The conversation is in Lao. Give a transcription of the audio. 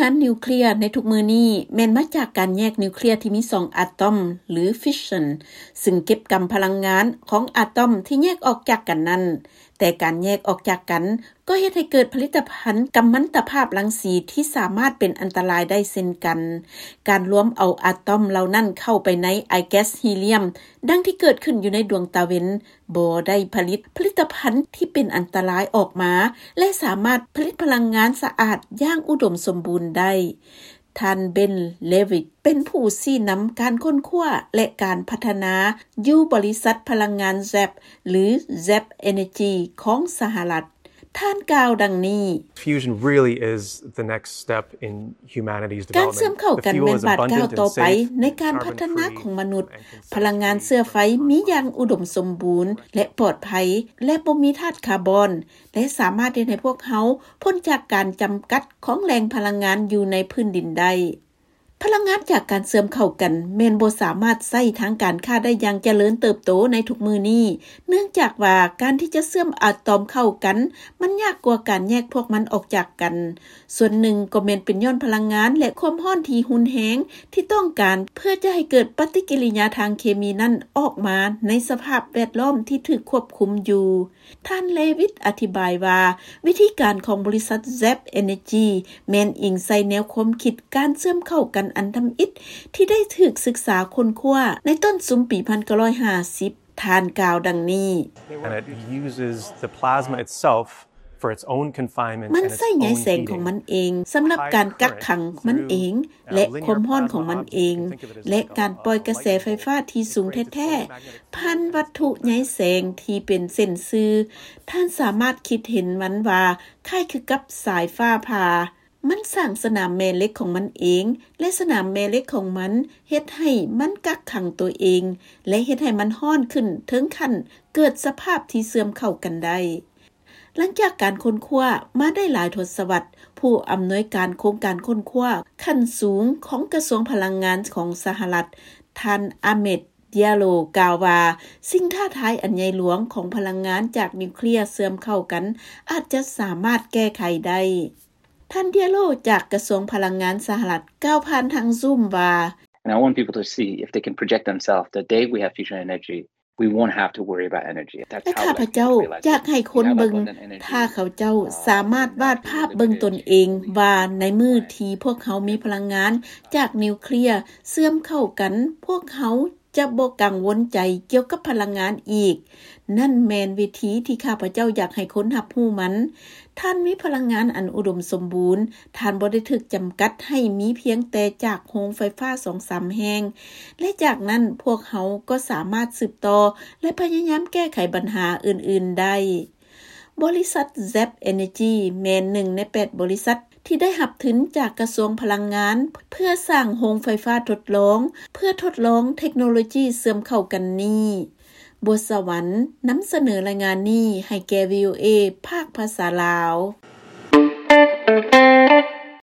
ງານນິວເຄລຍໃນທຸກມື້ນີ້ແມ່ນມາຈາກການແຍກນິວເຄລຍທີ່ມີສອງອາຕອມ ຫຼື ຟິສຊັນ ຊຶ່ງເກັບກຳພະລັງງານຂອງອາຕອມທີ່ແຍກອອກຈາກກັນນັ້ນ. ແຕ່ການແຍກອອກຈາກກັນກໍເຮັດໃຫ້ເກີດຜະລິດຕະພັນກຳມັນຕະພາບລັງສີທີ່ສາມາດເປັນອັນຕະລາຍໄດ້ເຊັ່ນກັນ. ການລວມເອົາອາຕອມເຫຼົ່ານັ້ນເຂົ້າໄປໃນອາຍແກັສຮີລຽມ ດັ່ງທີ່ເກີດຂຶ້ນຢູ່ໃນດວງຕາເວັນ ບໍ່ໄດ້ຜະລິດຜະລິດຕະພັນທີ່ເປັນອັນຕະລາຍອອກມາ ແລະ ສາມາດຜະລິດພະລັງງານສະອາດຢ່າງອຸດົມສົມບູນໄດ້. ທ່ານ ເບັນ ເລວິດ ເປັນຜູ້ຊີ້ນຳການຄົ້ນຄວ້າ ແລະ ການພັດທະນາຢູ່ບໍລິສັດພະລັງງານ ແຊັບ ຫຼື Zap Energy ຂອງສະຫະລັດ. ທ່ານກ່າວດັ່ງນີ້, Fusion really is the next step in humanity's development. ການເຊື່ອມເຂົ້າກັນແມ່ນບາດກ້າວຕໍ່ໄປໃນການພັດທະນາຂອງມະນຸດ. ພະລັງງານເຊື້ອໄຟມີຢ່າງອຸດົມສົມບູນ ແລະ ປອດໄພ ແລະ ບໍ່ມີທາດຄາບອນ ແລະ ສາມາດເຮັດໃຫ້ພວກເຮົາພົ້ນຈາກການຈຳກັດຂອງແຫຼ່ງພະລັງງານຢູ່ໃນພື້ນດິນໄດ້. ພະລັງງານຈາກການເຊື່ອມເຂົ້າກັນແມ່ນບໍ່ສາມາດໃຊ້ທາງການຄ້າໄດ້ຢ່າງຈະເລີນເຕີບໂຕໃນທຸກມື້ນີ້, ເນື່ອງຈາກວ່າການທີ່ຈະເຊື່ອມອາຕອມເຂົ້າກັນ ມັນຍາກກວ່າການແຍກພວກມັນອອກຈາກກັນ. ສ່ວນໜຶ່ງກໍແມ່ນເປັນຍ້ອນພະລັງງານ ແລະ ຄວາມຮ້ອນທີ່ຮຸນແຮງທີ່ຕ້ອງການເພື່ອຈະໃຫ້ເກີດປະຕິກິລິຍາທາງເຄມີນັ້ນອອກມາໃນສະພາບແວດລ້ອມທີ່ຖືກຄວບຄຸມຢູ່. ທ່ານ ເລວິດ ອະທິບາຍວ່າ ວິທີການຂອງບໍລິສັດ Zap Energy ແມ່ນອີງໃສ່ແນວຄວາມຄິດການເຊື່ອມເຂົ້າກັນອັນທຳອິດທີ່ໄດ້ຖືກສຶກສາຄົ້ນຄວ້າໃນຕົ້ນຊຸມປີພັນເກົ້າຮ້ອຍຫ້າສິບ. ທ່ານກ່າວດັ່ງນີ້, And it uses the plasma itself for its own confinement. ມັນໃຊ້ໃຍແສງຂອງມັນເອງສຳລັບການກັກຂັງມັນເອງ ແລະ ຄວາມຮ້ອນຂອງມັນເອງ ແລະ ການປ່ອຍກະແສໄຟຟ້າທີ່ສູງແທ້ໆ ຜ່ານວັດຖຸໃຍແສງທີ່ເປັນເສັ້ນຊື່. ທ່ານສາມາດຄິດເຫັນມັນວ່າຄ້າຍຄືກັບສາຍຟ້າຜ່າ. ມັນສ້າງສະໜາມແມ່ເຫຼັກຂອງມັນເອງ ແລະ ສະໜາມແມ່ເຫຼັກຂອງມັນເຮັດໃຫ້ມັນກັກຂັງຕົວເອງ ແລະ ເຮັດໃຫ້ມັນຮ້ອນຂຶ້ນເຖິງຂັ້ນເກີດສະພາບທີ່ເຊື່ອມເຂົ້າກັນໄດ້. ຫຼັງຈາກການຄົ້ນຄວ້າມາໄດ້ຫຼາຍທົດສະວັດ, ຜູ້ອຳນວຍການໂຄງການຄົ້ນຄວ້າຂັ້ນສູງຂອງກະຊວງພະລັງງານຂອງສະຫະລັດ, ທ່ານ ອາເມດ ເດຍໂລ ກ່າວວ່າ ສິ່ງທ້າທາຍອັນໃຫຍ່ຫຼວງຂອງພະລັງງານຈາກນິວເຄລຍເຊື່ອມເຂົ້າກັນອາດຈະສາມາດແກ້ໄຂໄດ້. ທ່ານ ເດຍໂລ ຈາກກະຊວງພະລັງງານສະຫະລັດ ກ່າວຜ່ານທາງ Zoom ວ່າ, And I want people to see if they can project themselves the day we have fusion energy, we won't have to worry about energy. ແລະ ຂ້າພະເຈົ້າຢາກໃຫ້ຄົນເບິ່ງ, ຖ້າເຂົາເຈົ້າສາມາດວາດພາບເບິ່ງຕົນເອງວ່າໃນມື້ທີ່ພວກເຮົາມີພະລັງງານຈາກນິວເຄລຍເຊື່ອມເຂົ້າກັນ, ພວກເຮົາຈະບໍ່ກັງວົນໃຈກ່ຽວກັບພະລັງງານອີກ. ນັ້ນແມ່ນວິທີທີ່ຂ້າພະເຈົ້າຢາກໃຫ້ຄົນຮັບຮູ້ມັນ. ທ່ານມີພະລັງງານອັນອຸດົມສົມບູນ, ທ່ານບໍ່ໄດ້ຖືກຈຳກັດໃຫ້ມີພຽງແຕ່ຈາກໂຮງໄຟຟ້າສອງສາມແຫ່ງ ແລະ ຈາກນັ້ນພວກເຮົາກໍສາມາດສືບຕໍ່ ແລະ ພະຍາຍາມແກ້ໄຂບັນຫາອື່ນໆໄດ້. ບໍລິສັດ Zap Energy ແມ່ນໜຶ່ງໃນແປດບໍລິສັດທີ່ໄດ້ຮັບທຶນຈາກກະຊວງພະລັງງານ ເພື່ອສ້າງໂຮງໄຟຟ້າທົດລອງ ເພື່ອທົດລອງເທັກໂນໂລຈີເຊື່ອມເຂົ້າກັນນີ້. ບົວສະຫວັນ ນຳສະເໜີລາຍງານນີ້ໃຫ້ແກ່ ວີໂອເອ ພາກພາສາລາວ.